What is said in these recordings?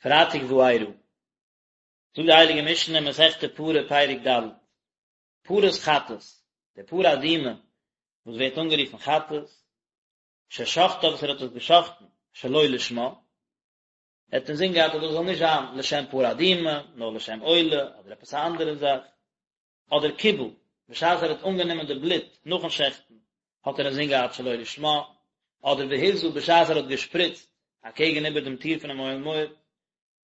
פרייטאג וארא. זאגט די הייליגע משנה אין מסכת פרה פרק ד', פרת חטאת, די פרה אדומה וואס ווערט אנגערופן חטאת, ששחטה וואס ער האט עס געשחטן שלא לשמה, ער האט אינזין געהאט אז דאס זאל נישט זיין לשם פרה אדומה, נאר לשם עולה אדער עפעס א אנדערע זאך, אדער קיבל, בשעת ער האט אנגענומען די בלוט נאכן שעכטן, האט ער אינזין געהאט שלא לשמה, אדער והזה בשעת ער האט געשפריצט אקעגן איבער דעם טיר פונעם אוהל מועד,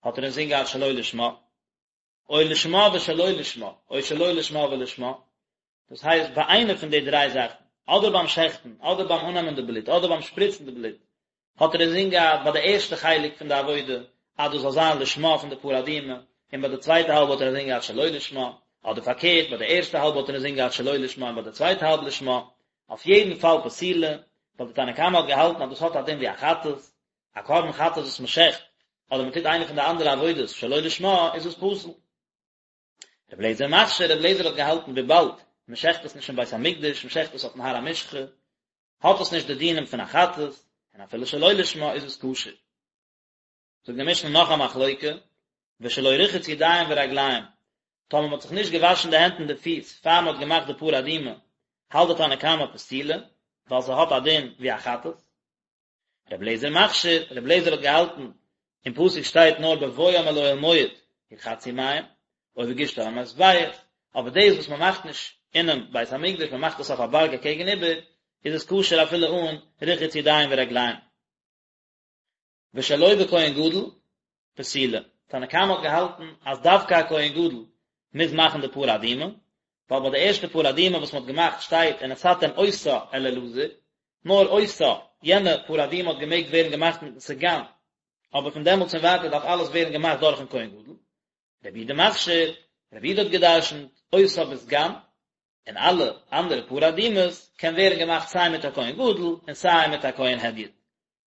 האט ער אינזין געהאט שלא לשמה, או לשמה ושלא לשמה, או שלא לשמה ולשמה, דאס הייסט ביי איינע פון די דריי זאכן, אדער ביים שעכטן, אדער ביים אננעמען די בלוט, אדער ביים שפריצן די בלוט, האט ער אינזין געהאט ביי די ערשטע חלק פון די עבודה אז דאס זאל זיין לשמה פון די פרה אדומה, און ביי די צווייטע האלב האט ער אינזין געהאט שלא לשמה, אדער פארקערט ביי די ערשטע האלב האט ער אינזין געהאט שלא לשמה און ביי די צווייטע האלב לשמה, אויף יעדן פאל פסולה, ווייל די תנא קמא האט געהאלטן אז דאס האט א דין ווי א חטאת, א קרבן חטאת וואס מען שעכט, אדער מען טוט איינע פון די אנדערע עבודות שלא לשמה, איז עס פסול. רבי אליעזר מכשיר, רבי אליעזר האט געהאלטן וויבאלד מען שעכט עס נישט אין בית המקדש, מען שעכט עס אויפן הר המשחה, האט עס נישט די דינים פון א חטאת, און אפילו שלא לשמה איז עס כשר. זאגט די משנה נאך א מחלוקה, ושלא רחץ ידיים ורגליים, טאמער מען האט זיך נישט געוואשן די הענט און די פיס פאר מען האט געמאכט די פרה אדומה, האלט די תנא קמא פסולה, ווייל ס'האט א דין ווי א חטאת. רבי אליעזר מכשיר, רבי אליעזר האט געהאלטן, אין פסוק שטייט נאר בבואם אל אוהל מועד ירחצו מים, או בגשתם אל המזבח, אבער דאס וואס מען מאכט נישט אינעם בית המקדש, מען מאכט עס אויף א בארג אקעגן איבער, איז עס כשר אפילו אן רחיץ ידיים ורגליים. ושלא בכהן גדול, פסולה. תנא קמא האט געהאלטן אז דווקא א כהן גדול מוז מאכן די פרה אדומה, ווייל ביי די ערשטע פרה אדומה וואס מען האט געמאכט שטייט ונתתם אותה אל אלעזר, נאר אותה, יענע פרה אדומה האט געמעגט ווערן געמאכט מיטן סגן, אבער פון דעמאלטס און ווייטער דארף אלעס ווערן געמאכט דורכן כהן גדול. רבי יהודה מכשיר, רבי יהודה האט גע'דרש'נט אותה בסגן, און אלע אנדערע פרה אדומות קען ווערן געמאכט סיי מיט א כהן גדול און סיי מיט א כהן הדיוט.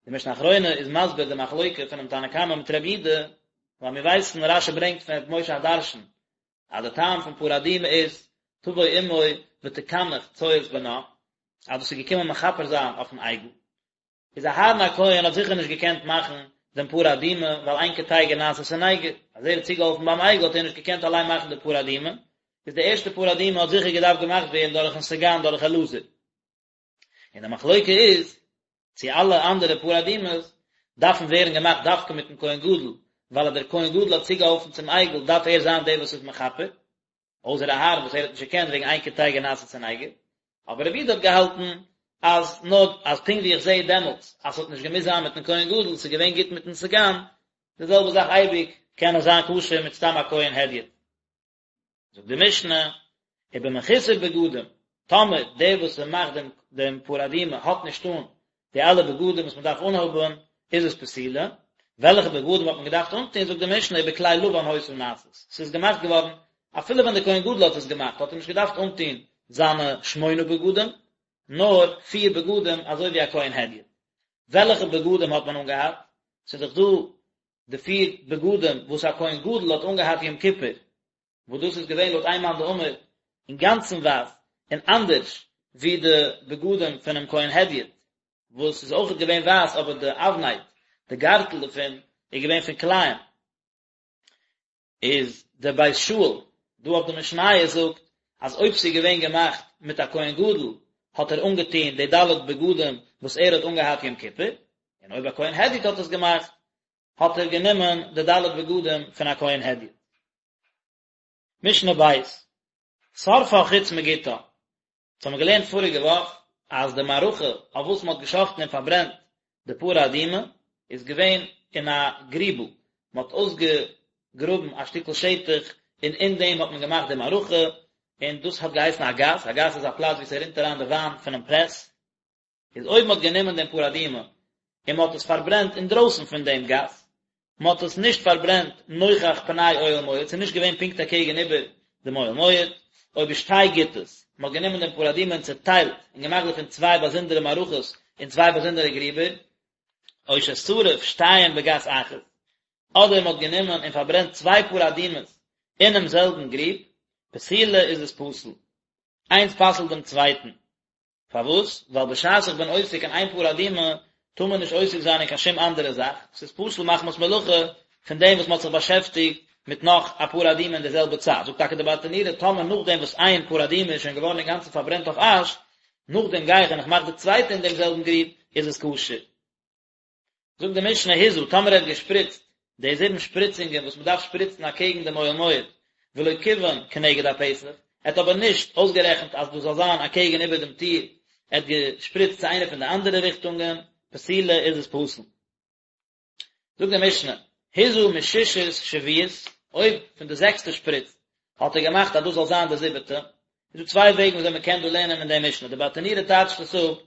די משנה אחרונה איז מסביר די מחלוקה פונעם תנא קמא מיט רבי יהודה, ווייל מיר ווייסן, רש"י ברענגט פון ר' משה הדרשן, אז די טעם פון פרה אדומה איז, תבוא אמו ותקנח צואת בנה, אז דאס איז געקומען מכפר זיין אויפן עגל. איז אהרן הכהן האט זיכער נישט געקענט מאכן דעם פרה אדומה, ווייל אין קטיגור נעשה סניגור, אז ער האט צוגעהאלפן ביים עגל האט ער נישט געקענט אליין מאכן די פרה אדומה, איז די ערשטע פרה אדומה האט זיכער געדארפט געמאכט ווערן דורכן סגן דורך אלעזר. און די מחלוקה איז צו אלע אנדערע פרה אדומות דארפן ווערן געמאכט דווקא מיטן כהן גדול, ווייל אז דער כהן גדול האט צוגעהאלפן צום עגל דארף ער זיין דער וואס איז מכפר, אויסער אהרן וואס ער האט נישט געקענט וועגן אין קטיגור נעשה סניגור, אבער רבי יהודה האט געהאלטן אז נאר אז פונקט ווי איך זעה דעמאלטס אז ס'האט נישט געמוזט זיין מיטן כהן גדול, ס'איז געווען גוט מיטן סגן, די זעלבע זאך אייביג קען עס זיין כשר מיט סתם א כהן הדיוט. זאגט די משנה, ובמחוסר בגדים, טאמער דער וואס ס'מאכט דעם דעם פרה אדומה האט נישט אן די אלע בגדים וואס מ'דארף אנהאבן, איז עס פסולה, וועלכע בגדים האט מען געדארפט אנטון, זאגט די משנה, ובכלי לבן היתה נעשית, ס'איז געמאכט געווארן, אפילו ווען דער כהן גדול האט עס געמאכט האט ער נישט געדארפט אנטון זיינע שמונה בגדים, נאר פיר בגדים אזוי ווי א כהן הדיוט. וועלכע בגדים האט מען אנגעהאט? ס'איז דאך דא די פיר בגדים וואס א כהן גדול האט אנגעהאט יום כיפור, וואס דאס איז געווען לויט איין מאן דאמר אינגאנצן ווייס און אנדערש ווי די בגדים פונעם כהן הדיוט וואס איז אויכעט געווען ווייס אבער די אבנט, די גארטל דערפון, איז געווען פון כלאים. איז דער בית שאול דא אויף די משניות זאגט אז אויב ס'איז געווען געמאכט מיט א כהן גדול האט ער אנגעטון די ד' בגדים וואס ער האט אנגעהאט יום כיפור, און אויב א כהן הדיוט האט עס געמאכט האט ער גענומען די ד' בגדים פון א כהן הדיוט. משנה ב', שרפה חוץ מגתה, אונז האבן געלערנט פאריגע וואך אז די מערכה אויף וואס מען האט געשחטן און פארברענט די פרה אדומה איז געווען אין א גריבל, מען האט אויסגעגראבן א שטיקל שטח און אין דעם האט מען געמאכט די מערכה, און דאס האט געהייסן א גת, א גת איז א פלאץ וואו ס'רינט אריין די וויין פונעם פרעס, איז אויב מען האט גענומען דעם פרה אדומה און מען האט עס פארברענט אינדרויסן פון דעם גת, מען האט עס נישט פארברענט נוכח פני אוהל מועד, ס'איז נישט געווען פונקט אקעגן איבער דעם אוהל מועד, או בשתי גתות, מען האט גענומען דעם פרה אדומה און צעטיילט און געמאכט דערפון צוויי באזונדערע מערכות אין צוויי באזונדערע גריבער, או ששרף שתיים בגת אחת, אדער מען האט גענומען און פארברענט צוויי פרה אדומות אינעם זעלבן גריב, פסולה איז עס פסול. איינס פסל'ט דעם צווייטן. פארוואס? ווייל בשעת איך בין עוסק אין איין פרה אדומה, טאר מען נישט עוסק זיין אין קיין שום אנדערע זאך, ס'איז פסול מחמת מלאכה. פון דעם וואס מען האט זיך באשעפטיגט מיט נאך א פרה אדומה אין די זעלבע צייט, זאגט טאקע די ברטנורא, טאמער נאכדעם וואס איין פרה אדומה איז שוין געווארן אינגאנצן פארברענט אויף אש, נאכדעם גיי איך און איך מאך די צווייטע אין דעם זעלבן גריב, איז עס כשר. זאגט די משנה הזה, טאמער ער האט געשפריצט די זיבן שפריצונגען וואס מען דארף שפריצן אקעגן דעם אוהל מועד, ולא כיוון כנגד הפתח, ער האט אבער נישט אויסגערעכנט אז דאס זאל זיין אקעגן איבער דעם טיר, ער האט געשפריצט צו איינע פון די אנדערע ריכטונגען, פסולה איז עס פסול. זאגט די משנה, הזה משישית שביעית, אויב פון די זעקסטע שפריץ האט ער געמאכט אז דאס זאל זיין די זיבעטע, איז דא צוויי וועגן וויאזוי מען קען דא לערנען אין די משנה, די ברטנורא טייטשט עס אפ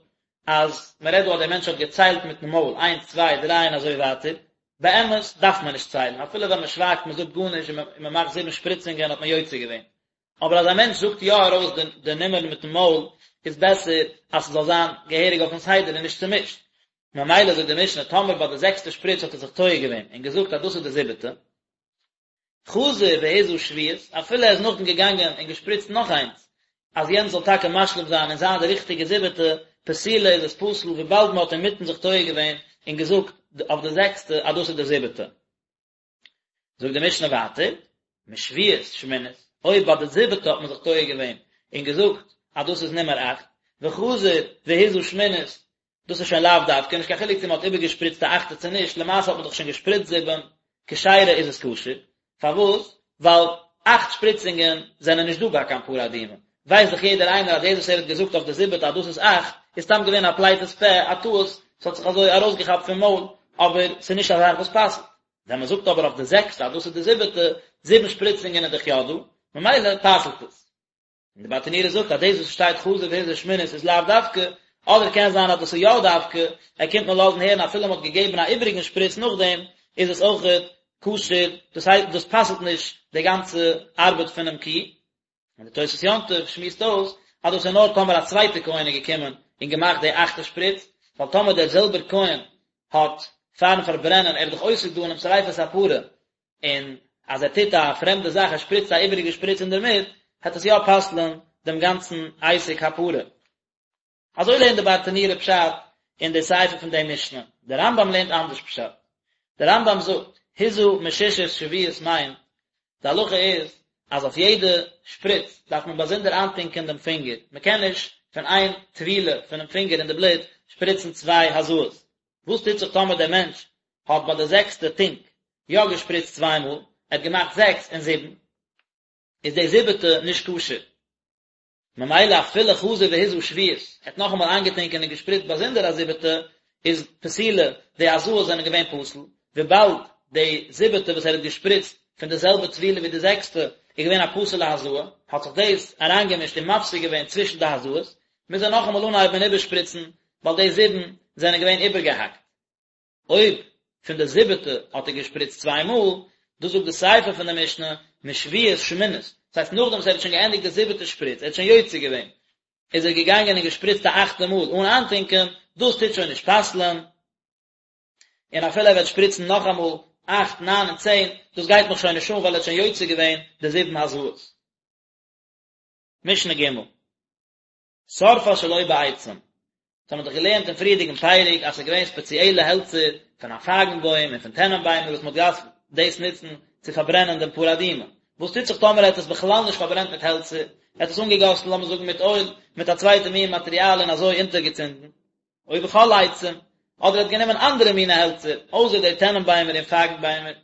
אז מען רעדט דא אז דער מענטש האט געציילט מיטן מויל איינס צוויי דריי און אזוי ווייטער, באמת דארף מען נישט ציילן, אפילו ווען מען שווייגט מען זאגט גארנישט און מען מאכט זיבן שפריצונגען האט מען יוצא געווען, אבער אז א מענטש זאגט יא ארויס די נומערן מיטן מויל איז בעסער אז ס'זאל זיין געהעריג אויפן סדר און נישט צומישט, ממילא זאגט די משנה טאמער ביי די זעקסטע שפריץ האט ער זיך טועה געווען און געזאגט אז דאס איז די זיבעטע, חזר והזה שביעית, אפילו ער איז נאכדעם געגאנגען און געשפריצט נאך איינס, אז יענץ זאל טאקע משלים זיין און זיין די ריכטיגע זיבעטע, פסולה איז עס פסול וויבאלד מען האט אינמיטן זיך טועה געווען און געזאגט אויף די זעקסטע אז דאס איז די זיבעטע. זאגט די משנה ווייטער, משביעית שמינית, אויב ביי די זיבעטע האט מען זיך טועה געווען און געזאגט אז דאס איז נומער אכט, וחזר והזה שמינית, דאס איז שוין לאו דווקא, נישט קיין חילוק צו מען האט איבערגעשפריצט א אכטע צו נישט, למעשה האט מען דאך שוין געשפריצט זיבן, כשרה איז עס כשר, פארוואס? ווייל אכט שפריצונגען זענען נישט דא ביי קיין פרה אדומה, ווייסט דאך יעדער איינער אז דאס וואס ער האט געזאגט אויף די זיבעטע אז דאס איז אכט, איז סתם געווען א פליטת פה, א טעות, ס'האט זיך אזוי ארויסגעכאפט פון מויל, אבער ס'איז נישט א זאך וואס פסל'ט. ווען מען זאגט אבער אויף די זעקסטע אז דאס איז די זיבעטע, זיבן שפריצונגען איז דאך יא דא, ממילא פסל'ט עס. און די ברטנורא זאגט אז דאס וואס שטייט חזר והזה שמינית איז לאו דווקא, אדער קען זיין אז דאס איז יא דווקא, ער קומט נאר לאזן הערן אפילו מען האט געגעבן א איבעריגן שפריץ נאכדעם, איז עס אויכעט כשר, דאס הייסט דאס פסל'ט נישט די גאנצע ארבעט פונעם קי. און די תוספות יום טוב שמועסט אויס אז דאס איז נאר טאמער א צווייטע כהן איז געקומען און געמאכט די אכטע שפריץ, ווייל טאמער דער זעלבער כהן האט פארן פארברענען, ער איז דאך עוסק דא אינעם שריפת הפרה, און אז ער טוט א פרעמדע זאך, ער שפריצט א איבעריגע שפריץ אינדערמיט, העט עס יא פסל'ן דעם גאנצן עסק הפרה. אזוי לערנט די ברטנורא פשט אין די סיפא פון די משנה. דער רמב"ם לערנט אנדערש פשט. דער רמב"ם זאגט, הזה משישית שביעית מיינט, די הלכה איז אז אויף יעדע שפריץ דארף מען באזונדער איינטונקען דעם פינגער, מען קען נישט פון איין טבילה פונעם פינגער אין די בלוט שפריצן צוויי הזאות. וואס טוט זיך טאמער דער מענטש האט ביי די זעקסטע טונק יא געשפריצט צוויי מאל, ער האט געמאכט זעקס און זיבן, איז די זיבעטע נישט כשר. ממילא אפילו חזר והזה שביעית, ער האט נאכאמאל איינגעטונקען און געשפריצט באזונדער א זיבעטע, איז פסולה, די הזאות זענען געווען פסול, וויבאלד די זיבעטע וואס ער האט געשפריצט פון די זעלבע טבילה ווי די זעקסטע איז געווען א פסול'ע הזאה, האט זיך דאס אריינגעמישט און מפסיק געווען צווישן די הזאות, מוז ער נאכאמאל אנהייבן און איבערשפריצן, ווייל די זיבן זענען געווען איבערגעהאקט. אויב פון די זיבעטע האט ער געשפריצט צוויי מאל, דאס זאגט די סיפא פון די משנה, משביעית שמינית, דאס הייסט נאכדעם וואס ער האט שוין געענדיגט די זיבעטע שפריץ, ער האט שוין יוצא געווען, איז ער געגאנגען און געשפריצט א אכטע מאל אן איינטונקען, דאס טוט שוין נישט פסל'ען, און אפילו ער וועט שפריצן נאכאמאל אכט, ניין און צען, דאס גייט מיך שוין נישט אן ווייל ער האט שוין יוצא געווען די זיבן הזאות. משנה ג'. שרפה שלא בעצים. דאס האבן מיר דאך געלערנט אין פריערדיגן פרק אז ס'איז געווען ספעציעלע העלצער פון א פייגן בוים און פון טענען ביימער וואס מ'האט געדארפט דאס נוצן צו פארברענען דעם פרה אדומה. וואס טוט זיך טאמער ער האט עס בכלל נישט פארברענט מיט העלצער, ער האט עס אנגעגאסן לאמיר זאגן מיט אויל, מיט א צווייטע מין מאטריאל און אזוי אונטערגעצינדן? או בכל עצים, אדער ער האט גענומען אנדערע מיני העלצער, אויסער די טענען ביימער און פייגן ביימער.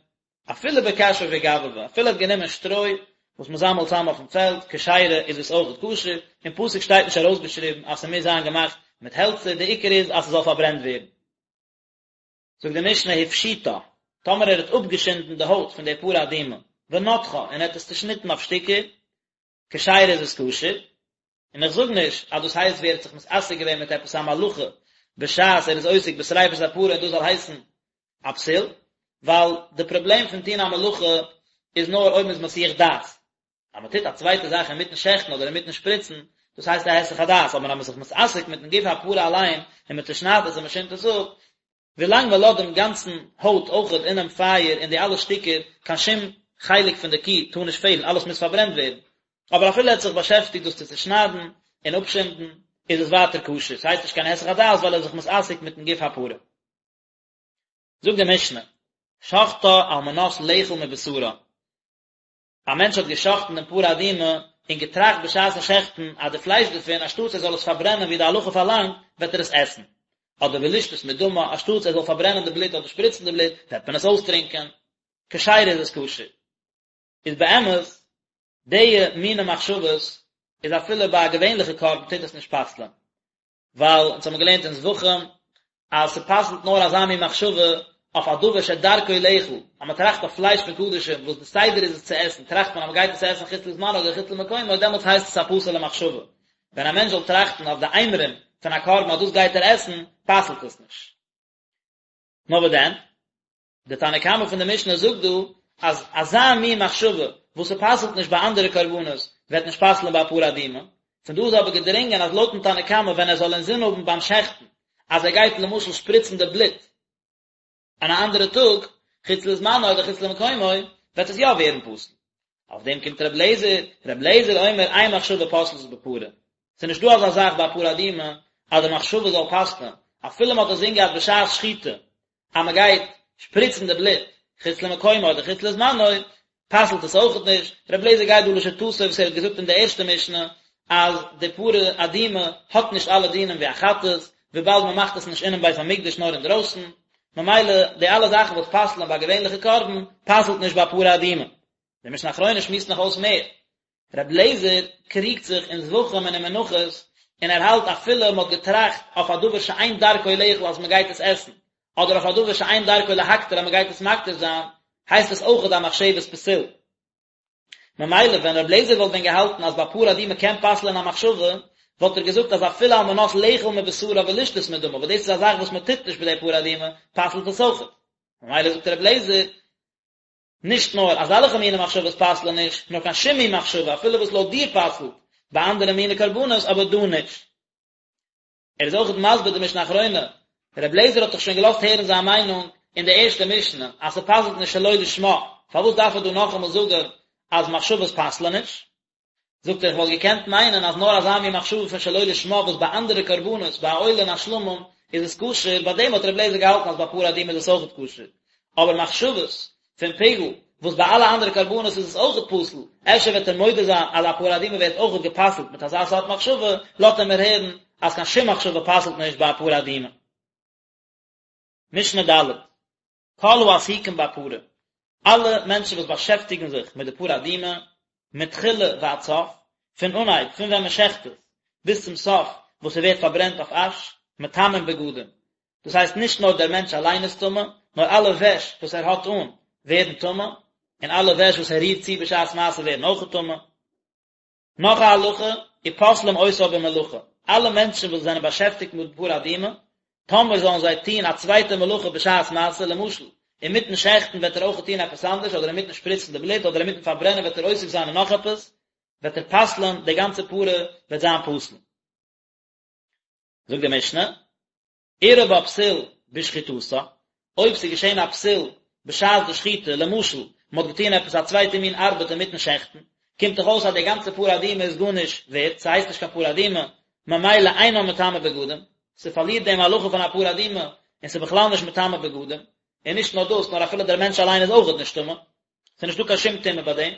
אפילו בקש ובגבבא, אפילו ער האט גענומען שטרוי וואס מען זאמעלט צאם אויפן פעלד, כשרה איז עס אויך כשר, אין פסוק שטייט נישט ארויסגעשריבן אז ס'מוז זיין געמאכט מיט העלצער, די עיקר איז אז ס'זאל פארברענט ווערן. זאגט די משנה הפשיטה, טאמער ער האט אפגעשינדן די הויט פון די פרה אדומה, ונתחה, און ער האט עס צושניטן אויף שטיקער, כשרה איז עס כשר, און איך זאג נישט אז דאס הייסט ווי ער האט זיך מתעסק געווען מיט עפעס א מלאכה בשעת ער איז עוסק בשריפת הפרה און דאס זאל הייסן א פסול, ווייל די פראבלעם פון טון א מלאכה איז נאר אויב מען איז מסיח דעת, אז מען טוט א צווייטע זאך אינמיטן שעכטן אדער אינמיטן שפריצן, דאס הייסט א היסח הדעת, אבער אז מען איז זיך מתעסק מיטן גוף הפרה אליין און מען צושניידט עס און מען שינדט עס אפ, ווילאנג מען לאזט דעם גאנצן הויט אויכעט אינעם פייער און די אלע שטיקער, קיין שום חלק פון די קי טאר נישט פעלן, אלעס מוז פארברענט ווערן. אבער אפילו ער האט זיך באשעפטיגט דאס צו צושניידן און אפשינדן, איז עס ווייטער כשר, ס'הייסט נישט קיין היסח הדעת ווייל ער איז זיך מתעסק מיטן גוף הפרה. זאגט די משנה. שחטה על מנת לאכול מבשרה, א מענטש האט גע'שחט'ן דעם פרה אדומה און געטראכט בשעת'ן שעכטן אז די פלייש דערפון אנשטאטס ער זאל עס פארברענען ווי די הלכה פארלאנגט וועט ער עס עסן, אדער ולשתות מדמה אנשטאטס ער זאל פארברענען די בלוט אדער שפריצן די בלוט וועט מען עס אויסטרינקען, כשרה איז עס כשר. איז באמת די מיני מחשבות איז אפילו ביי א געווענליכע קרבן טוט עס נישט פסל'ען, ווייל אונז האבן געלערנט אין זבחים אז ס'פסל'ט נאר אזא מין מחשבה אויף א דבר שדרכו לאכול, אז מ'טראכט אויף פלייש פון קדשים וואס די סדר איז עס צו עסן, טראכט מען אז מ'גייט עס עסן חוץ לזמנו אדער חוץ למקומו, דעמאלטס הייסט עס א פסול'ע מחשבה. ווען א מענטש זאל טראכטן אויף די אימורים פון א קרבן אז דאס גייט ער עסן, פסל'ט עס נישט. נאר וואס דען? די תנא קמא פון די משנה זאגט דא אז אזא מין מחשבה וואס ס'פסל'ט נישט ביי אנדערע קרבנות וועט נישט פסל'ן ביי א פרה אדומה, פון דא איז אבער געדרינגען אז לויט'ן תנא קמא ווען ער זאל אינזין האבן ביים שעכטן אז ער גייט למשל שפריצן די בלוט אין א אנדערע טאג חוץ לזמנו אדער חוץ למקומו וועט עס יא ווערן פסול. אויף דעם קומט ר' לעזער, ר' לעזער אומר אין מחשבה פוסלת בפרה, ס'איז נישט דא אזא זאך ביי א פרה אדומה אז די מחשבה זאל פסל'ן, אפילו מ'האט אינזין געהאט בשעת שחיטה אז מען גייט שפריצן די בלוט חוץ למקומו אדער חוץ לזמנו, פסל'ט עס אויכעט נישט, רבי אליעזר גייט דא לשיטתו וואס ער האט געזאגט אין די ערשטע משנה אז די פרה אדומה האט נישט אלע דינים ווי א חטאת, וויבאלד מען מאכט עס נישט אינעם בית המקדש נאר אינדרויסן, ממילא די אלע זאכן וואס פסל'ן ביי א געווענליכע קרבן, פסל'ט נישט ביי פרה אדומה. די משנה אחרונה שמועסט נאך אויס מער, רבי אליעזר קריגט זיך אין זבחים און אין מנחות, און ער האלט אפילו מען האט געטראכט אויף א דבר שאין דרכו לאכול אז מען גייט עס עסן, אדער אויף א דבר שאין דרכו להקטיר אז מען גייט עס מקטיר זיין, הייסט עס אויכעט א מחשבת פסול. ממילא ווען רבי אליעזר וואלט ווען געהאלטן אז ביי פרה אדומה קען פסל'ען א מחשבה, וואלט ער געזאגט אז אפילו על מנת לאכול מבשרה ולשתות מדמה, וואס דאס איז א זאך וואס מען טוט נישט ביי די פרה אדומה, פסל'ט עס אויכעט. ממילא זאגט רבי אליעזר, נישט נאר אזעלכע מיני מחשבות פסל'ען נישט, נאר קיין שום מין מחשבה, אפילו וואס לויט דיר פסל'ט ביי אנדערע מיני קרבנות, אבער דא נישט. ער איז אויכעט מסביר די משנה אחרונה, ר' לעזער האט דאך שוין געלאזט הערן זיין מיינונג אין די ערשטע משנה, אז ס'פסל'ט נישט שלא לשמה, פארוואס דארף ער דא נאכאמאל זאגען אז מחשבות פסל'ען נישט? זאגט ער איך וואלט געקענט מיינען אז נאר אזא מין מחשבה פון שלא לשמה וואס ביי אנדערע קרבנות ביי א עולה און א שלמים איז עס כשר, ביי דעם האט רבי אליעזר געהאלטן אז ביי פרה אדומה איז עס אויכעט כשר, אבער מחשבות פון פיגול וואס ביי אלע אנדערע קרבנות איז עס אויכעט פסול, אפשר וועט ער מודה זיין אז א פרה אדומה ווערט אויכעט גע'פסל'ט מיט אזא סארט מחשבה, לאזט ער מיר הערן אז קיין שום מחשבה פסל'ט נישט ביי א פרה אדומה. משנה ד'. כל העסוקים בפרה, אלע מענטשן וואס באשעפטיגן זיך מיט די פרה אדומה, מתחילה ועד סוף, פון אנהייב, פון ווען מען שעכט עס, ביז צום סוף וואס ס'ווערט פארברענט אויף אש, מטמאין בגדים. דאס הייסט נישט נאר דער מענטש אליין איז טמא, נאר אלע וועש וואס ער האט אן ווערן טמא, און אלע וועש וואס ער רירט צו בשעת מעשה ווערן אויכעט טמא. נאך א הלכה, ופוסלים אותה במלאכה, אלע מענטשן וואס זענען באשעפטיגט מיט פרה אדומה, טאמער זאלן זיי טון א צווייטע מלאכה בשעת מעשה, למשל, אינמיטן שעכטן וועט ער אויך טון עפעס אנדערש, אדער אינמיטן שפריצן די בלוט, אדער אינמיטן פארברענען וועט ער עוסק זיין אין נאך עפעס, וועט ער פסל'ען, די גאנצע פרה וועט זיין פסול. זאגט די משנה, אירע בה פסול בשחיטתה, אויב ס'איז געשען א פסול בשעת די שחיטה, למשל, מ'האט געטון עפעס א צווייטע מין ארבעט אינמיטן שעכטן, קומט דאך אויס אז די גאנצע פרה אדומה איז גארנישט ווערט, ס'הייסט נישט קיין פרה אדומה, ממילא אינה מטמאה בגדים, ס'פארלירט דעם הלכה פון א פרה אדומה, און ס'איז בכלל נישט מטמא בגדים, און נישט נאר דאס, נאר אפילו דער מענטש אליין איז אויכעט נישט טמא, ס'איז נישטא קיין שום טומאה ביי דעם.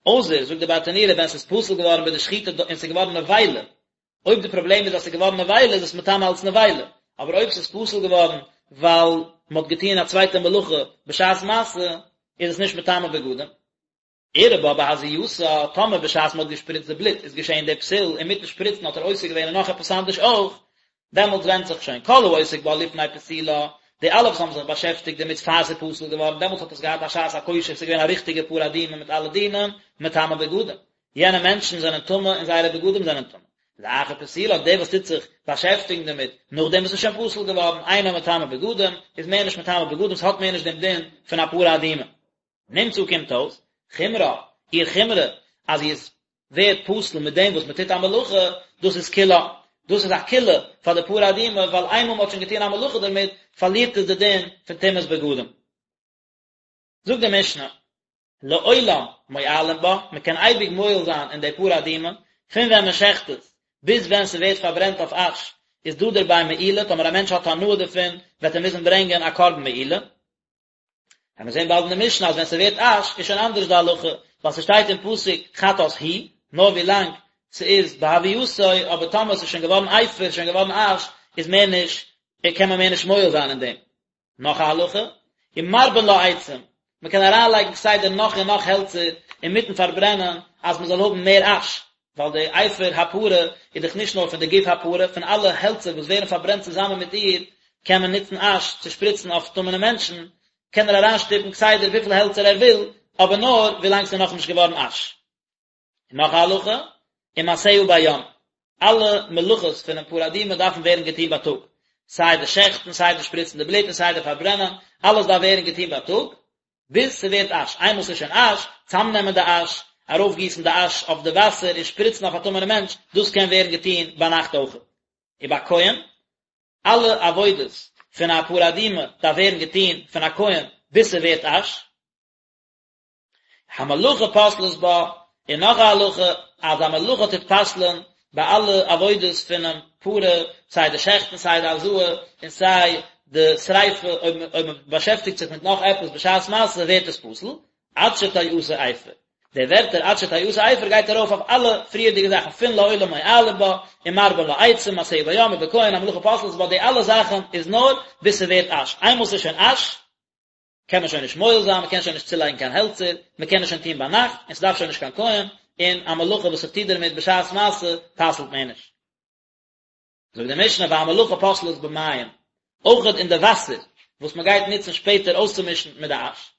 אויסער, זאגט די ברטנורא, ווען ס'איז פסול געווארן ביי די שחיטה און ס'איז געווארן נבילה, אויב די פראבלעם איז אז ס'איז געווארן נבילה איז עס מטמא אלס נבילה, אבער אויב ס'איז פסול געווארן ווייל מ'האט געטון א צווייטע מלאכה בשעת מעשה, איז עס נישט מטמא בגדים. אירע בה בהזייתה, טאמער בשעת מ'האט געשפריצט די בלוט איז געשען די פסול, אינמיטן שפריצן האט ער עוסק געווען אין נאך עפעס אנדערש אויך, דעמאלטס ווענדט זיך שוין כל העוסק בה לפני פסילה, די אלע וואס האבן זיך באשעפטיגט דערמיט פאר ס'איז פסול געווארן, דעמאלטס האט עס געהאט א שעת הכושר, ס'איז געווען א ריכטיגע פרה אדומה מיט אלע דינים, מטמא בגדים. יענע מענטשן זענען טמא און זייערע בגדים זענען טמא. לאחר פסילה, דער וואס טוט זיך באשעפטיגן דערמיט נאכדעם וואס ס'איז שוין פסול געווארן, אינה מטמא בגדים, איז מער נישט מטמא בגדים, ס'האט מער נישט דעם דין פון א פרה אדומה. נמצא קומט אויס, חומרה, איר חומרא, אז זי איז ווערט פסול מיט דעם וואס מען טוט א מלאכה, דאס איז קולא, דאס איז א קולא פאר די פרה אדומה, ווייל איינמאל מען האט שוין געטון א מלאכה דערמיט, פארלירט עס די דין פון טומאת בגדים. זאגט די משנה, לעולם מועלין בה, מען קען אייביג מועל זיין אין די פרה אדומה, פון ווען מען שעכט עס, ביז ווען ס'ווערט פארברענט אויף אש, איז דא דערביי מעילה, טאמער א מענטש האט הנאה דערפון, וועט ער מוזן ברענגען א קרבן מעילה. וועלן מיר זען באלד אין די משנה אז ווען ס'ווערט אש איז שוין אנדערש די הלכה, ווייל ס'שטייט אין פסוק חטאת הוא, נאר ווי לאנג ס'איז בהוייתו, אבער טאמער ס'איז שוין געווארן אפר, שוין געווארן אש, איז מער נישט, קען מען מער נישט מועל זיין אין דעם. נאך א הלכה, ומרבין לה עצים, מען קען אריינלייגן כסדר נאך און נאך העלצער אינמיטן פארברענען אז מען זאל האבן מער אש, ווייל די אפר הפרה איז דאך נישט נאר פון די גוף הפרה, פון אלע העלצער וואס ווערן פארברענט צוזאמען מיט איר קען מען נוצן אש צו שפריצן אויף טמא'נע מענטשן, קען ער אריינשטופן כסדר וויפיל העלצער ער וויל, אבער נאר ווילאנג ס'איז נאכנישט געווארן אש. און נאך א הלכה, ומעשיה ביום, אלע מלאכות פונעם פרה אדומה דארפן ווערן געטון בייטאג, סיי די שעכטן, סיי די שפריצן די בלוט און סיי די פארברענען, אלעס דארף ווערן געטון בייטאג, ביז ס'ווערט אש, איינמאל ס'איז שוין אש, צאמנעמען די אש, ארויפגיסן די אש אויף די וואסער און שפריצן אויף א טמא'נע מענטש, דאס קען ווערן געטון ביינאכט אויכעט. ובכהן, אלע עבודות פון א פרה אדומה דארף ווערן געטון פון א כהן ביז ס'ווערט אש. המלאכה פוסלת בה, און נאך א הלכה אז א מלאכה טוט פסל'ען ביי אלע עבודות פונעם פרה, סיי די שעכטן סיי די הזאה און סיי די שריפה, אויב מען באשעפטיגט זיך מיט נאך עפעס בשעת מעשה ווערט עס פסול, עד שתעשה אפר. די ווערטער עד שתעשה אפר גייט ארויף אויף אלע פריערדיגע זאכן פון לעולם מועלין בה, ומרבין לה עצים, מעשיה ביום ובכהן המלאכה פוסלת בה, די אלע זאכן איז נאר ביז ס'ווערט אש, איינמאל ס'איז שוין אש, קען מען שוין נישט מועל זיין, מען קען שוין נישט צולייגן קיין העלצער, מען קען עס שוין טון ביינאכט, און ס'דארף שוין נישט קיין כהן, און א מלאכה וואס איך טו דערמיט בשעת מעשה פסל'ט מער נישט. זאגט די משנה והמלאכה פוסלת במים, אויכעט אין די וואסער וואס מען גייט נוצן שפעטער אויסצומישן מיט די אש,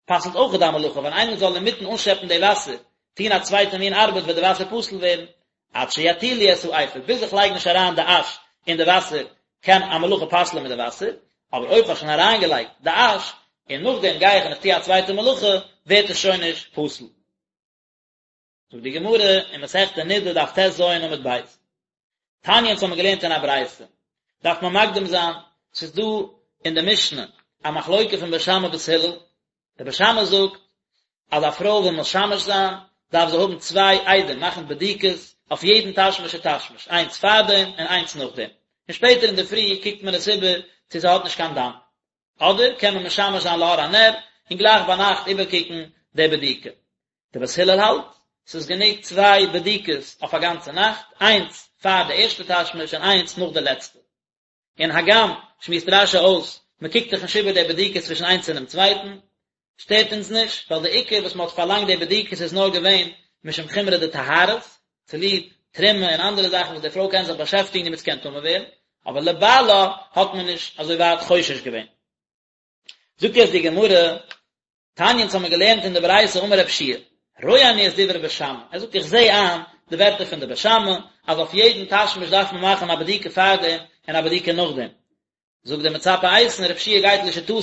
פסל'ט אויכעט די מלאכה, ווען איינער זאל אינמיטן אנשעפן די וואסער, טון א צווייטע מין ארבעט וועט די וואסער פסול ווערן, עד שיטילו את האפר, ביז איך לייג נישט אריין די אש אין די וואסער קען א מלאכה פסל'ען מיט די וואסער, אבער אויב כ'האב שוין אריינגעלייגט די אש, און נאכדעם גיי איך און איך טו א צווייטע מלאכה, ווערט עס שוין נישט פסול. זאגט די גמרא אין מסכת נדה דף טז עמוד ב', תניא אונז האבן מיר געלערנט אין א ברייתא, דארף מען מקדים זיין, ס'איז דא אין די משנה א מחלוקה פון בית שמאי בית הלל, די בית שמאי זאגט אז א פרוי וויל משמש זיין דארף זי האבן צוויי עדים מאכן בדיקות אויף יעדן תשמיש ותשמיש, איינס פארדעם און איינס נאכדעם, און שפעטער אינדערפרי קוקט מען עס איבער צו ס'האט נישט קיין דם, אדער קען מען משמש זיין לאור הנר און גלייך ביינאכט איבערקוקן די בדיקה. די בית הלל האלט ס'איז גענוג צוויי בדיקות אויף א גאנצע נאכט, איינס פאר די ערשטע תשמיש און איינס נאך די לעצטע. און הגם, שמועסט רש"י אויס, מען קוקט דאך נישט איבער די בדיקות צווישן איינס און דעם צווייטן, שטערט אונז נישט, ווייל די עיקר וואס מען האט פארלאנגט די בדיקות איז נאר געווען משום חומרא דטהרות, צוליב תרומה און אנדערע זאכן וואס די פרוי קען זיך באשעפטיגן דערמיט ס'קען טמא ווערן, אבער לבעלה האט מען נישט אזוי ווייט חושש געווען. זאגט יעצט די גמרא, תניא אונז האמיר געלערנט אין די ברייתא אמר רב שיע, רואה אני את דברי בית שמאי, ער זאגט איך זע איין די ווערטער פון די בית שמאי, אז אויף יעדן תשמיש דארף מען מאכן א בדיקה פארדעם און א בדיקה נאכדעם. זאגט דער מצפה איתן, רב שיע גייט לשיטתו,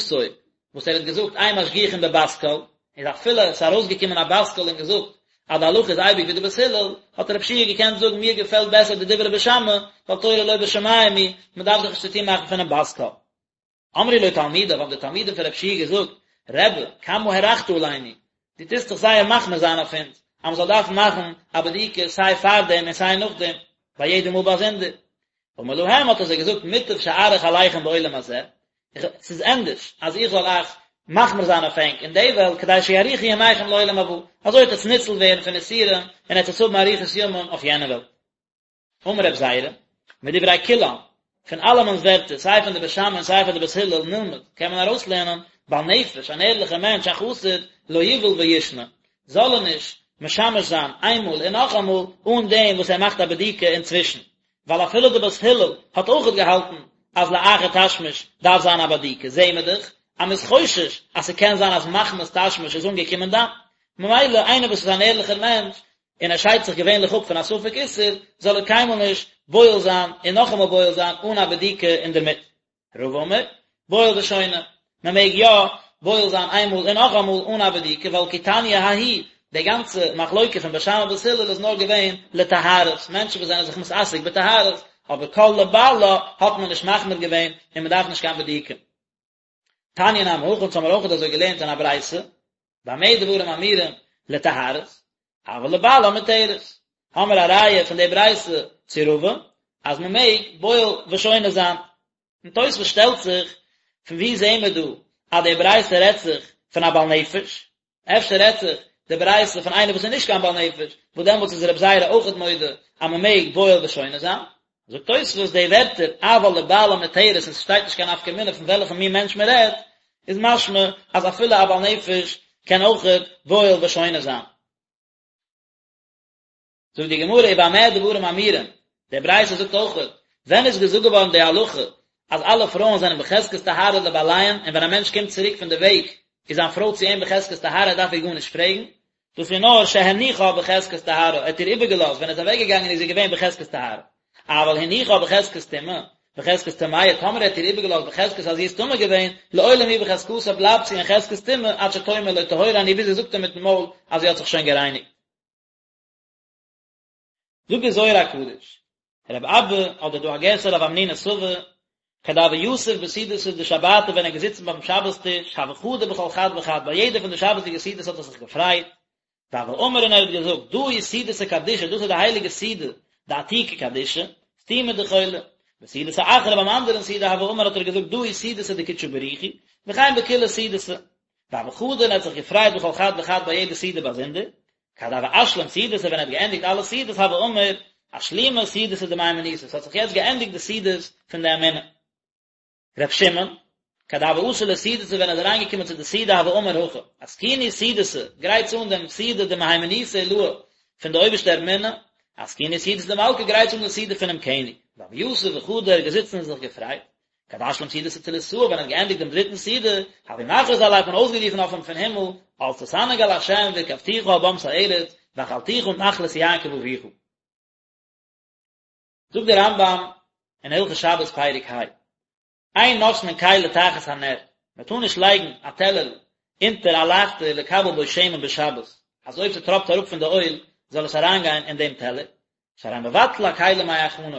וואס ער האט געזאגט אין משגיחין בבת קול, איז אפילו עס איז ארויסגעקומען א בת קול און געזאגט אז די הלכה איז אייביג ווי די בית הלל, האט רב שיע געקענט זאגן מיר געפעלט בעסער די דברי בית שמאי, ווייל תורה לא בשמים היא, מען דארף זיך נישט צוטון מאכן פונעם בת קול. אמרו לו תלמידיו, האבן די תלמידים פון רב שיע געזאגט, רבי, כמה הארכת עלינו, דו טוסט דאך זייער מחמיר זיין אויף אונז, אז מען זאל דארפן מאכן א בדיקה סיי פארדעם און סיי נאכדעם, ביי יעדע מאל באזונדער. אמר להם, האט ער זיי געזאגט, מוטב שאאריך עליכם בעולם הזה, ס'איז ענדערש אז איך זאל אייך מחמיר זיין אויף ענק אין די וועלט, כדי שיאריכו ימיכם לעולם הבא, אזוי וועט עטס ניצול ווערן פון איסורים און עטס האבן אריכות ימים אויף יענע וועלט. אמר רב זירא, מדברי כולם, פון אלעמענס ווערטער, סיי פון די בית שמאי און סיי פון די בית הלל, נלמד, קען מען ארויסלערנען, בעל נפש, אן ערליכער מענטש, א חסיד, לא יבעול וישנה, זאל ער נישט משמש זיין איינמאל און נאכאמאל, אן דעם וואס ער מאכט א בדיקה אינצווישן, ווייל אפילו די בית הלל האט אויכעט געהאלטן אז לאחר תשמיש דארף זיין א בדיקה, זעהן מיר דאך אז מ'איז חושש אז ס'קען זיין אז מחמת תשמיש איז אנגעקומען דם, ממילא איינער וואס איז אן ערליכער מענטש און ער שיידט זיך געווענליך אפ פון א ספק איסור, זאל ער קיינמאל נישט בועל זיין און נאכאמאל בועל זיין אן א בדיקה אינדערמיט. רבא אמר, בועל ושונה, מען מעג יא בועל זיין איינמאל און נאכאמאל אן א בדיקה, ווייל כי תניא ההיא, די גאנצע מחלוקה פון בית שמאי ובית הלל איז נאר געווען לטהרות, מענטשן וואס זענען זיך מתעסק בטהרות, אבער כל לבעלה האט מען נישט מחמיר געווען און מען דארף נישט קיין בדיקה. תניא נמי הכי, אונז האמיר אויכעט אזוי געלערנט אין א ברייתא, במה דברים אמורים לטהרות, אבל לבעלה מותרת. האמיר א ראיה פון די ברייתא צו רבא, אז מען מעג בועל ושונה זיין. און תוספות שטעלט זיך, פון וואו זעהן מיר דא. אז די ברייתא רעדט זיך פון א בעל נפש, אפשר רעדט זיך די ברייתא פון איינער וואס איז נישט קיין בעל נפש, וואס דעמאלטס איז רבי זירא אויכעט מודה אז מען מעג בועל ושונה זיין. זאגט תוספות די ווערטער אבל לבעלה מותרת און ס'שטייט נישט קיין נפקא מינה פון וועלכע מין מענטש מען רעדט, איז משמע אז אפילו א בעל נפש קען אויכעט בועל ושונה זיין. זאגט די גמרא ובמה דברים אמורים, די ברייתא זאגט אויכעט, ווען איז געזאגט געווארן די הלכה אז אלע פרויען זענען בחזקת טהרה לבעליהן און ווען א מענטש קומט צוריק פון די וועג איז זיין פרוי צו אים בחזקת טהרה ער דארף איר גארנישט פרעגן, דאס איז נאר שהניחה בחזקת טהרה, ער האט איר איבערגעלאזט ווען ער איז אוועק געגאנגען איז זי געווען בחזקת טהרה, אבל הניחה בחזקת טומאה, בחזקת טמאה, טאמער ער האט איר איבערגעלאזט בחזקת אז זי איז טמא געווען, לעולם היא בחזקתה בלייבט זי אין חזקת טומאה עד שתאמר לו טהורה אני ביז זי זאגט אים מיטן מויל אז זי האט זיך שוין גערייניגט. זאגט דער זוהר הקדוש, רב אבא, אדער דא א גירסא רב המנונא סבא, כד הוה יתיב בסעודתא דשבתא ווען ער איז געזיצן ביים שבת טיש, הוה חדי בכל חד וחד, ביי יעדע פון די שבת'דיגע סעודות האט ער זיך געפרייט, והוה אמר און ער האט געזאגט, דא היא סעודתא קדישא, דאס איז די הייליגע סעודה, דעתיקא קדישא, סתימא דכולא. בסעודתא אחרא ביים אנדערן סעודה הוה אמר האט ער געזאגט דא היא סעודתא דקודשא בריך הוא, וכן בכולהו סעודתא. והוה חדי און ער האט זיך געפרייט בכל חד וחד ביי יעדע סעודה באזונדער, כד הוה אשלים סעודתא ווען ער האט געענדיגט אלע סעודות הוה אמר, אשלימו סעודתא דמהימנותא, ס'האט זיך יעצט געענדיגט די סעודות פון די אמונה. ר' שמעון, כד הוה אתי לסעודתא ווען ער איז אריינגעקומען צו די סעודה הוה אמר הכי, אתקינו סעודתא, גרייטס אן דעם סעודה דמהימנותא עילאה פון די אויבערשטע אמונה, אתקינו סעודתא דמלכא גרייטס אן די סעודה פונעם קעניג. והוה יתיב וחדי ער איז געזיצן און זיך געפרייט, כד אשלים סעודתא תליתאה ווען ער האט געענדיגט דעם דריטן סעודה, הוו מכריז עליה האט מען אויסגערופן אויף אים פון הימל, אז תתענג על השם והרכבתיך על במת ארץ, והאכלתיך נחלת יעקב אביך. זאגט דער רמב"ם אין הלכות שבת פרק ה, אין נותנין כלי תחת הנר, מען טאר נישט לייגן א טעלערל אונטער א לייכטער לקבל בו שמן בשבת, אז אויב ס'טראפט אראפ פון די אויל זאל עס אריינגיין אין דעם טעלער, שהרי מבטל הכלי מהיכנו,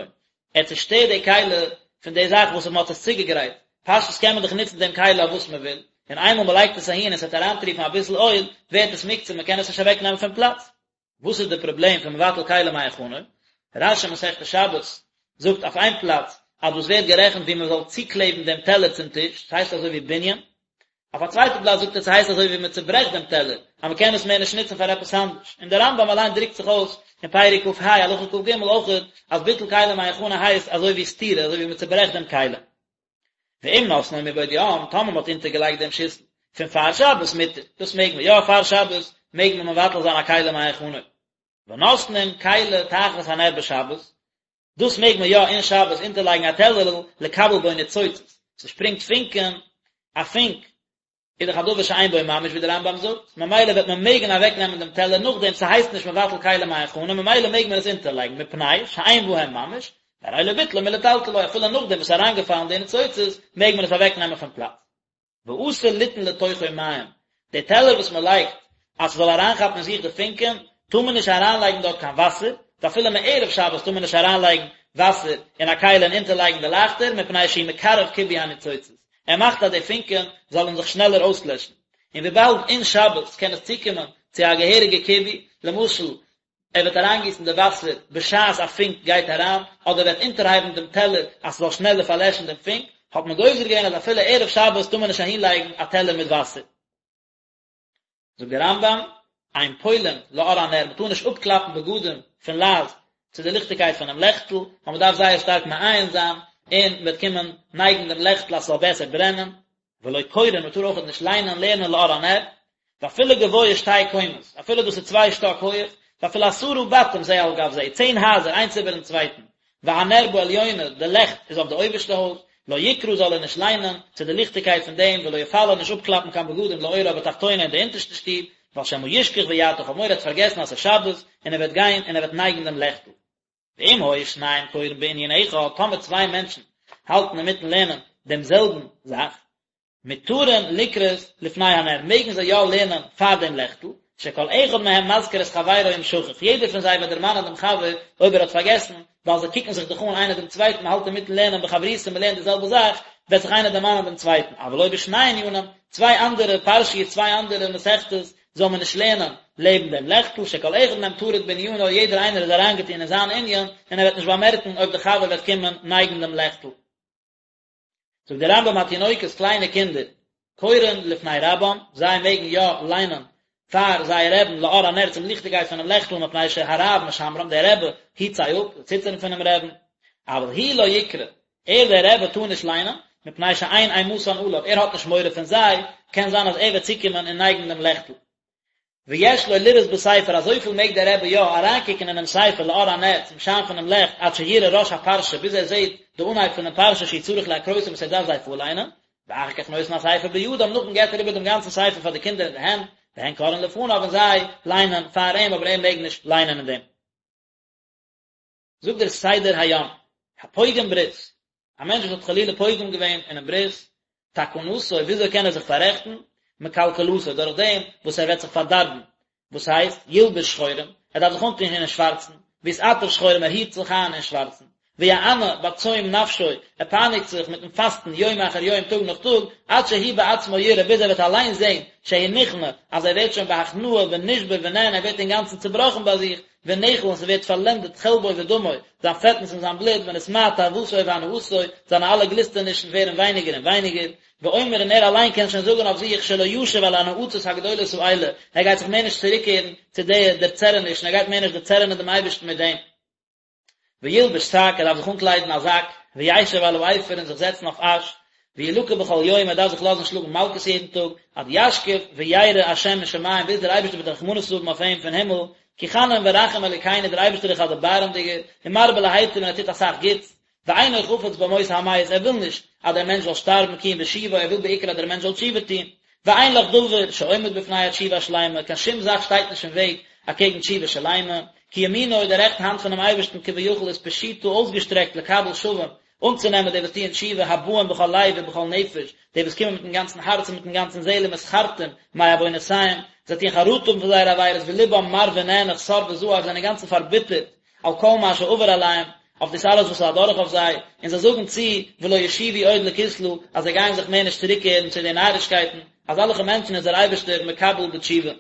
ער צושטערט די כלי פון די זאך וואס מען האט עס צוגעגרייט, פשטות קען מען דאך נוצן דעם כלי אויף וואס מען וויל, און איינמאל מען לייגט עס אהין און עס וועט אריינטריפן אביסל אויל, ווערט עס מוקצה, מען קען עס נישט אוועק נעמען פון פלאץ. וואס איז די פראבלעם פון מבטל כלי מהיכנו? רש"י מסכת שבת זאגט אויף איין פלאץ אז דאס ווערט גערעכנט ווי מען זאל צוקלעבן דעם טעלער צום טיש, ס'הייסט אזוי ווי בנין, אויף א צווייטע פלאץ זאגט ער ס'הייסט אזוי ווי מען צוברעכט דעם טעלער, אז מען קען עס מער נישט נוצן פאר עפעס אנדערש. און דער רמב"ם אליין דרוקט זיך אויס אין פרק כ"ה הלכה כ"ג אויכעט אז ביטול כלי מהיכנו הייסט אזוי ווי סתירה, אזוי ווי מען צוברעכט דעם כלי. ואם נתנו מבעוד יום, טאמער מען האט אונטערגעלייגט דעם שיסל פון פאר שבת מותר, דאס מעג מען יא, פאר שבת מעג מען מבטל זיין א כלי מהיכנו. ונותנין כלי תחת הנר בשבת, דאס מעג מען יא אין שבת אונטערלייגן א טעלערל לקבל בו ניצוצות, ס'שפרינגט פונקען, א פונק איז דאך א דבר שאין בו ממש ווי דער רמב"ם זאגט, ממילא וועט מען מעגן אוועקנעמען דעם טעלער נאכדעם, ס'הייסט נישט מבטל כלי מהיכנו, ממילא מעג מען עס אונטערלייגן, מפני שאין בהם ממש, והרי לא ביטלו מלטלטלו, אפילו נאכדעם וואס ס'איז אריינגעפאלן די ניצוצות, מעג מען עס אוועקנעמען פון פלאץ. ואסור ליתן לתוכו מים, די טעלער וואס מען לייגט אז ס'זאל אריינכאפן אין זיך די פונקען, טאר מען נישט אריינלייגן דארט קיין וואסער, ואפילו מערב שבת טאר מען נישט אריינלייגן וואסער אין א כלי און אונטערלייגן די לייכטער, מפני שהוא מקרב כיבוי הניצוצות, ער מאכט אז די פונקען זאלן זיך שנעלער אויסלעשן, און וויבאלד אין שבת קען עס צוקומען צו א געהעריגע כיבוי, למשל ער וועט אריינגיסן די וואסער בשעת א פונק גייט אריין, אדער וועט אונטערהייבן דעם טעלער אז ס'זאל שנעלער פארלעשן דעם פונק, האט מען גוזר געווען אז אפילו ערב שבת טאר מען נישט אהינלייגן א טעלער מיט וואסער. זאגט דער רמב"ם, אין פולין לאור הנר, מ'טאר נישט אפקלאפן בגדים פון לייז צו די ליכטיגקייט פונעם לעכטל, ווייל מ'דארף זייער שטארק מעיין זיין, און מ'וועט קומען נייגן דעם לעכטל אז ס'זאל בעסער ברענען, ולא קורין, מען טאר אויכעט נישט ליינען, לערנען לאור הנר, ואפילו גבוה שתי קומות, אפילו דאס איז צוויי שטאק הויעך, ואפילו עשרה בתים זה על גב זה, צען הייזער איינס איבערן צווייטן, והנר בעליונה, די לעכט איז אויף די אויבערשטע הויז, לא יקרא זאל ער נישט ליינען, צו די ליכטיגקייט פון דעם, ולא יפלה נישט אפקלאפן קיין בגדים לאורה בתחתונה אין די אונטערשטע שטוב, ווייל שמא ישכח ויטה, כ'האב מורא ער וועט פארגעסן אז ס'איז שבת, און ער וועט גיין און ער וועט נייגן דעם לעכטל. ואם היו שניים קורין בענין אחד, טאמער צוויי מענטשן האלטן אינמיטן לערנען דעם זעלבן זאך, מותרין לקרות לפני הנר, מעגן זיי יא לערנען פאר דעם לעכטל, שכל אחד מהם מזכיר את חברו אם שכח, יעדער פון זיי וועט דערמאנען דעם חבר אויב ער האט פארגעסן, ווייל זיי קוקן זיך דאך אן איינער דעם צווייטן, מען האלט אינמיטן לערנען בחברותא, מען לערנט די זעלבע זאך, וועט זיך איינער דערמאנען דעם צווייטן, אבל לא בשני ענינים, צוויי אנדערע פרשיות, צוויי אנדערע מסכתות, זאל מען נישט לערנען לעבן דעם לעכטל, שכל אחד מהם טרוד בענינו, יעדער איינער איז אריינגעטון אין זיין ענין, און ער וועט נישט באמערקן אויב דער חבר וועט קומען נייגן דעם לעכטל. זאגט דער רמב"ם התינוקות, קליינע קינדער. קורין לפני רבם, זיי מעגן יא ליינען פאר זייער רעבן לאור הנר צום ליכטיגקייט פונעם לעכטל מפני שהרב משמרם, דער רבי היט זיי אפ, זיי ציטערן פונעם רעבן, אבל הוא לא יקרא, ער דער רבי טאר נישט ליינען, מפני שאין אימתן עליו, ער האט נישט מורא פון זיי, קען זיין אז ער וועט צוקומען און נייגן דעם לעכטל. ויש לו לראות בספר, אזויפיל מעג דער רבי יא אריינקוקן אינעם ספר לאור הנר, צום שיין פונעם לעכט, עד שיראה ראש הפרשה, ביז ער זעט די אנהייב פונעם פרשה שהוא צריך להקרותם וואס ער דארף זיי פארליינען, ואחר כך נותן הספר בידם, נאכדעם געבט ער איבער דעם גאנצן ספר פאר די קינדער אין די הענט, והן קוראין לפניו און זיי ליינען פאר אים, אבער ער מעג נישט ליינען אין דעם. זאגט דער סדר היום, הפוגם ברית, א מענטש וואס האט חלילה פוגם געווען אינעם ברית, תקנתו, וויאזוי קען ער זיך פאררעכטן? מקלקלתו, דורך דעם וואס ער וועט זיך פארדארבן, וואס הייסט, ילבש שחורים, ער דארף זיך אנטון אין שווארצן, ויתעטף שחורים, ער היט זיך איין אין שווארצן, ויענה בצום נפשו, ער פייניגט זיך מיטן פאסטן יום אחר יום, טאג נאך טאג, עד שהוא בעצמו יראה, ביז ער וועט אליין זען, שהוא נכנע, אז ער ווערט שוין בהכנעה ונשבר ונענה, ער ווערט אינגאנצן צעבראכן ביי זיך, ונאכל און ס'ווערט פארלענדעט חלבו ודמו, זיין פעטנס און זיין בלוט, ונתמעט תאוותו והנאתו, זיינע אלע גליסטענישן ווערן ווייניגער און ווייניגער, ואומר און ער אליין קען שוין זאגן אויף זיך שלא ישוב אל הנאצות הגדולות האלה, ער גייט זיך מער נישט צוריקקערן צו די דערצערענישן, ער גייט מער נישט דערצערענען דעם אייבערשטן מיט דעם. וילבש שק, ער דארף זיך אנקליידן א זאק, וישב על האפר און זיך זעצן אויף אש, וילקה בכל יום, ער דארף זיך לאזן שלאגן מלקות יעדן טאג, עד ישקיף וירא השם משמים, ביז דער אייבערשטער וועט רחמנות האבן אויף אים פון הימל, כי חנון ורחום אלוקינו, דער אייבערשטער איז א דערבארעמדיגער, ומרבה להיטיב און ער טוט אסאך גוטס, ואינו חפץ במות המת, ער וויל נישט אז דער מענטש זאל שטארבן כי אם בשובו, ער וויל בעיקר אז דער מענטש זאל תשובה טון, ואין לך דבר שעומד בפני התשובה השלימה, קיין שום זאך שטייט נישט אין וועג אקעגן תשובה שלימה, כי ימינו, די רעכטע האנט פונעם אייבערשטן כביכול איז פשוטה אויסגעשטרעקט לקבל שבים, אנצונעמען די וואס טוען תשובה הבאים בכל לב ובכל נפש, די וואס קומען מיטן גאנצן הארץ און מיטן גאנצן זעהל ומתחרטים מעוונותיהם, זיי טוען חרטה האבן פון זייערע עבירות ולבם מר ונאנח סר וזעף, זיי זענען אינגאנצן פארביטערט על כל מה שעבר עליהם, אויף דאס אלעס וואס איז אדורך אויף זיי, און זיי זאגן צו ולא ישובו עוד לכסלה, אז זיי גייען זיך מער נישט צוריקקערן צו די נארישקייטן, אזעלכע מענטשן איז דער אייבערשטער מקבל בתשובה.